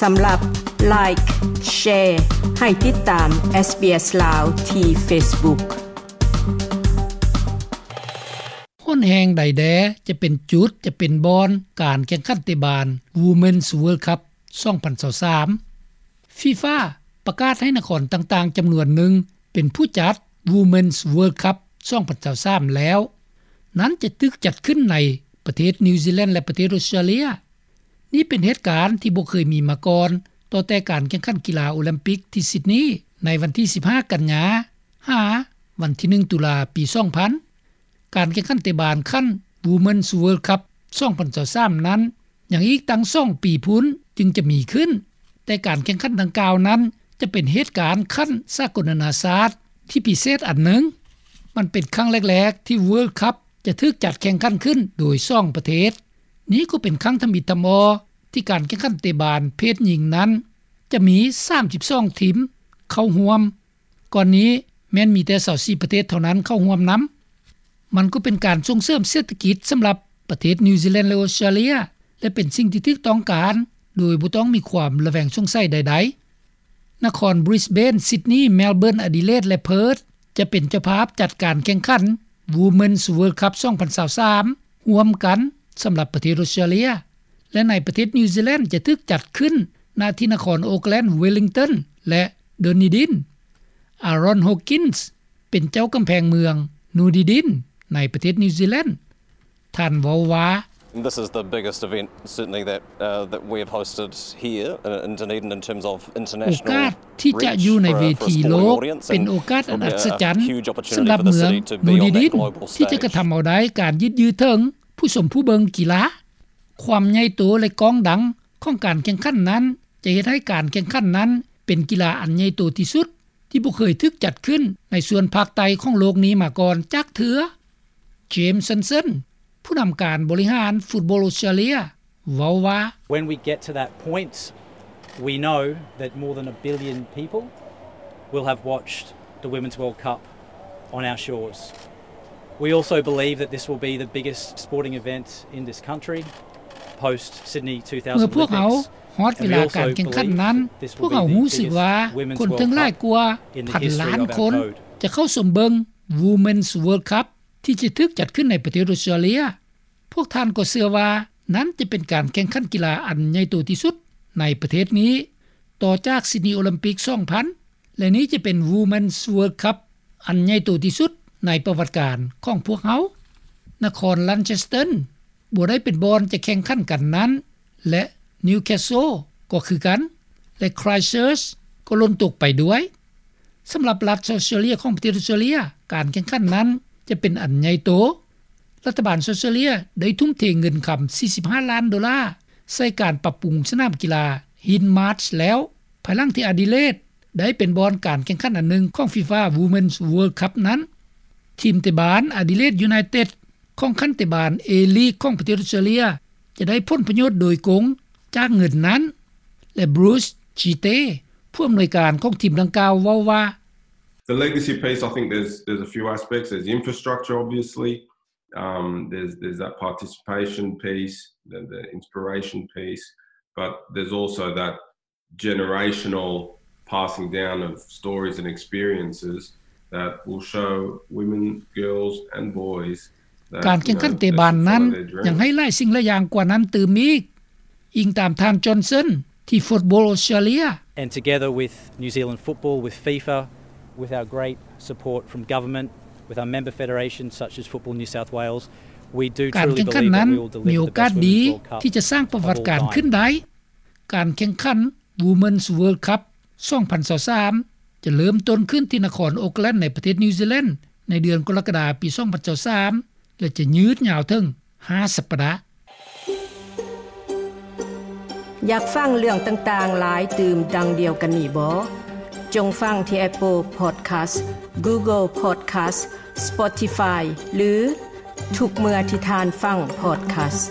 ສຳລັບ Like, Share ໃຫ້ຕິດຕາມ SBS ລາວ ທີ່ Facebook. ຮ້ອນແຮງໃດແດ່ຈະເປັນຈຸດ, ຈະເປັນບ່ອນການແຂ່ງຂັນເຕະບານ Women's World Cup ສອງພັນຊາວສາມ FIFA ປະກາດໃຫ້ນະຄອນຕ່າງໆຈຳນວນໜຶ່ງເປັນຜູ້ຈັດ Women's World Cup ສອງພັນຊາວສາມແລ້ວ. ນັ້ນຈະຖືກຈັດຂຶ້ນໃນປະເທດນິວຊີແລນ ແລະ ປະເທດອົດສະຕຣາເລຍ. ນີ້ເປັນເຫດການທີ່ບໍ່ເຄີຍມີມາກ່ອນ ຕໍ່ແຕ່ການແຂ່ງຂັນກິລາໂອລິມປິກທີ່ຊິດນີໃນວັນທີສິບຫ້າ ກັນຍາ ຫາວັນທີໜຶ່ງ ຕຸລາ ປີສອງພັນ. ການແຂ່ງຂັນເຕະບານຂັ້ນ Women's World Cup ສອງພັນຊາວສາມນັ້ນ ຍັງອີກຕັ້ງສອງປີພຸ້ນຈຶ່ງຈະມີຂຶ້ນ, ແຕ່ການແຂ່ງຂັນດັ່ງກ່າວນັ້ນຈະເປັນເຫດການຂັ້ນສາກົນນານາຊາດທີ່ພິເສດອັນໜຶ່ງ. ມັນເປັນຄັ້ງແລກໆທີ່ World Cup ຈະຖືກຈັດແຂ່ງຂັນຂຶ້ນໂດຍສອງປະເທດ. ນີ້ກໍເປັນຄັ້ງທຳອິດທຳອໍທີ່ການແຂ່ງຂັນເຕະບານເພດຍິງນັ້ນຈະມີສາມສິບສອງທີມເຂົ້າຮ່ວມ. ກ່ອນນີ້ແມ່ນມີແຕ່ຊາວສີ່ປະເທດເທົ່ານັ້ນເຂົ້າຮ່ວມນຳ. ມັນກໍເປັນການສົ່ງເສີມເສດຖະກິດສຳລັບປະເທດນິວຊີແລນ ແລະ ອົດສະຕຣາເລຍ ແລະ ເປັນສິ່ງທີ່ຖືກຕ້ອງການໂດຍບໍ່ຕ້ອງມີຄວາມລະແວງສົງໄສໃດໆ. ນະຄອນບຣິສເບນ, ຊິດນີ, ແມລເບີນ, ອະດີເລດ ແລະ ເພີດ ຈະເປັນເຈົ້າພາບຈັດການແຂ່ງຂັນ Women's World Cup ສອງພັນຊາວສາມ ຮ່ວມກັນສຳລັບປະເທດອົດສະຕຣາເລຍ ແລະ ໃນປະເທດນິວຊີແລນຈະຖືກຈັດຂຶ້ນ ນະທີ່ນະຄອນໂອກແລນ, ເວລິງຕັນ ແລະ ດູນນີດິນ. ອາຣອນ ໂຮກິນ ເປັນເຈົ້າກຳແພງເມືອງ ດູນນີດິນ ໃນປະເທດນິວຊີແລນ. ທ່ານເວົ້າວ່າ This is the biggest event, certainly, that, uh, that we have hosted here in, in Dunedin in terms of international reach for, for a sporting audience. ໂອກາດທີ່ຈະຢູ່ໃນເວທີໂລກເປັນໂອກາດອັນອັດສະຈັນສຳລັບເມືອງດູນນີດິນ ທີ່ຈະກະທຳເອົາໄດ້ການຍືດເຍື້ອເຖິງຜູ້ຊົມຜູ້ເບິ່ງກິລາ. ຄວາມໃຫຍ່ໂຕ ແລະ ກ້ອງດັງຂອງການແຂ່ງຂັນນັ້ນ ຈະເຮັດໃຫ້ການແຂ່ງຂັນນັ້ນເປັນກິລາອັນໃຫຍ່ໂຕທີ່ສຸດ ທີ່ບໍ່ເຄີຍຖືກຈັດຂຶ້ນໃນສ່ວນພາກໃຕ້ຂອງໂລກນີ້ມາກ່ອນຈັກເທື່ອ. ເຈມ ຊັນເຊິນ ຜູ້ນຳການບໍລິຫານຟຸດບອລອົດສະຕຣາເລຍ ເວົ້າວ່າ When we get to that point, we know that more than a billion people will have watched the Women's World Cup on our shores. We also believe that this will be the biggest sporting event in this country post Sydney two thousand Olympics. ເມື່ອພວກເຮົາຮອດເວລາການແຂ່ງຂັນນັ້ນ, ພວກເຮົາຮູ້ສຶກວ່າຄົນເຖິງຫຼາຍກວ່າພັນລ້ານຄົນຈະເຂົ້າຊົມເບິ່ງ Women's World Cup ທີ່ຈະຖືກຈັດຂຶ້ນໃນປະເທດອົດສະຕຣາເລຍ. ພວກທ່ານກໍເຊື່ອວ່ານັ້ນຈະເປັນການແຂ່ງຂັນກິລາອັນໃຫຍ່ໂຕທີ່ສຸດໃນປະເທດນີ້ ຕໍ່ຈາກຊິດນີໂອລິມປິກສອງພັນ ແລະ ນີ້ຈະເປັນ Women's World Cup ອັນໃຫຍ່ໂຕທີ່ສຸດໃນປະຫວັດການຂອງພວກເຮົາ. ນະຄອນແລນເຊສເຕີ ບໍ່ໄດ້ເປັນບ່ອນຈະແຂ່ງຂັນກັນນັ້ນ ແລະ ນິວແຄສເຊິລ ກໍຄືກັນ ແລະ ຄຣາຍເຊີຊ ກໍຫຼົ່ນຕົກໄປດ້ວຍ. ສຳລັບລັດອອສເຕຣເລຍຂອງປະເທດອອສເຕຣເລຍ, ການແຂ່ງຂັນນັ້ນຈະເປັນອັນໃຫຍ່ໂຕ. ລັດຖະບານອອສເຕຣເລຍໄດ້ທຸ່ມເທເງິນຄຳສີ່ສິບຫ້າລ້ານໂດລາໃສ່ການປັບປຸງສະໜາມກິລາ Hill Marsh ແລ້ວ, ພາຍຫຼັງທີ່ອະດີເລດໄດ້ເປັນບ່ອນການແຂ່ງຂັນອັນໜຶ່ງຂອງ FIFA Women's World Cup ນັ້ນ. ທີມເຕະບານ Adelaide United ຂອງຂັ້ນເຕະບານ A-League ຂອງປະເທດອອສເຕຣເລຍ ຈະໄດ້ຜົນປະໂຫຍດໂດຍກົງຈາກເງິນນັ້ນ ແລະ Bruce Chite ຜູ້ອຳນວຍການຂອງທີມດັ່ງກ່າວເວົ້າວ່າ The legacy piece, I think there's, there's a few aspects. There's infrastructure, obviously. Um, there's, there's that participation piece, the, the inspiration piece. But there's also that generational passing down of stories and experiences that will show women, girls and boys that, you know, ການແຂ່ງຂັນເຕະບານນັ້ນຍັງໃຫ້ຫຼາຍສິ່ງຫຼາຍຢ່າງກວ່ານັ້ນຕື່ມອີກ, ອີງຕາມທ່ານ Johnson ທີ່ Football Australia. And together with New Zealand Football, with FIFA, with our great support from government, with our member federations such as Football New South Wales, we do truly believe that we will deliver the best Women's World Cup of all time. ການແຂ່ງຂັນມີໂອກາດດີທີ່ຈະສ້າງປະຫວັດການຂຶ້ນໄດ້. ການແຂ່ງຂັນ Women's World Cup ສອງພັນຊາວສາມ ຈະເລີ່ມຕົ້ນຂຶ້ນທີ່ນະຄອນໂອກແລນ ໃນປະເທດນິວຊີແລນ ໃນເດືອນກໍລະກະດາ ປີສອງພັນຊາວສາມ ແລະ ຈະຍືດຍາວເຖິງຫ້າສັບປະດາ. ຢາກຟັງເລື່ອງຕ່າງໆຫຼາຍຕື່ມດັ່ງດຽວກັນນີ້ບໍ? ຈົ່ງຟັງທີ່ Apple Podcast, Google Podcast, Spotify ຫຼື ທຸກເມື່ອທີ່ທ່ານຟັງ podcast.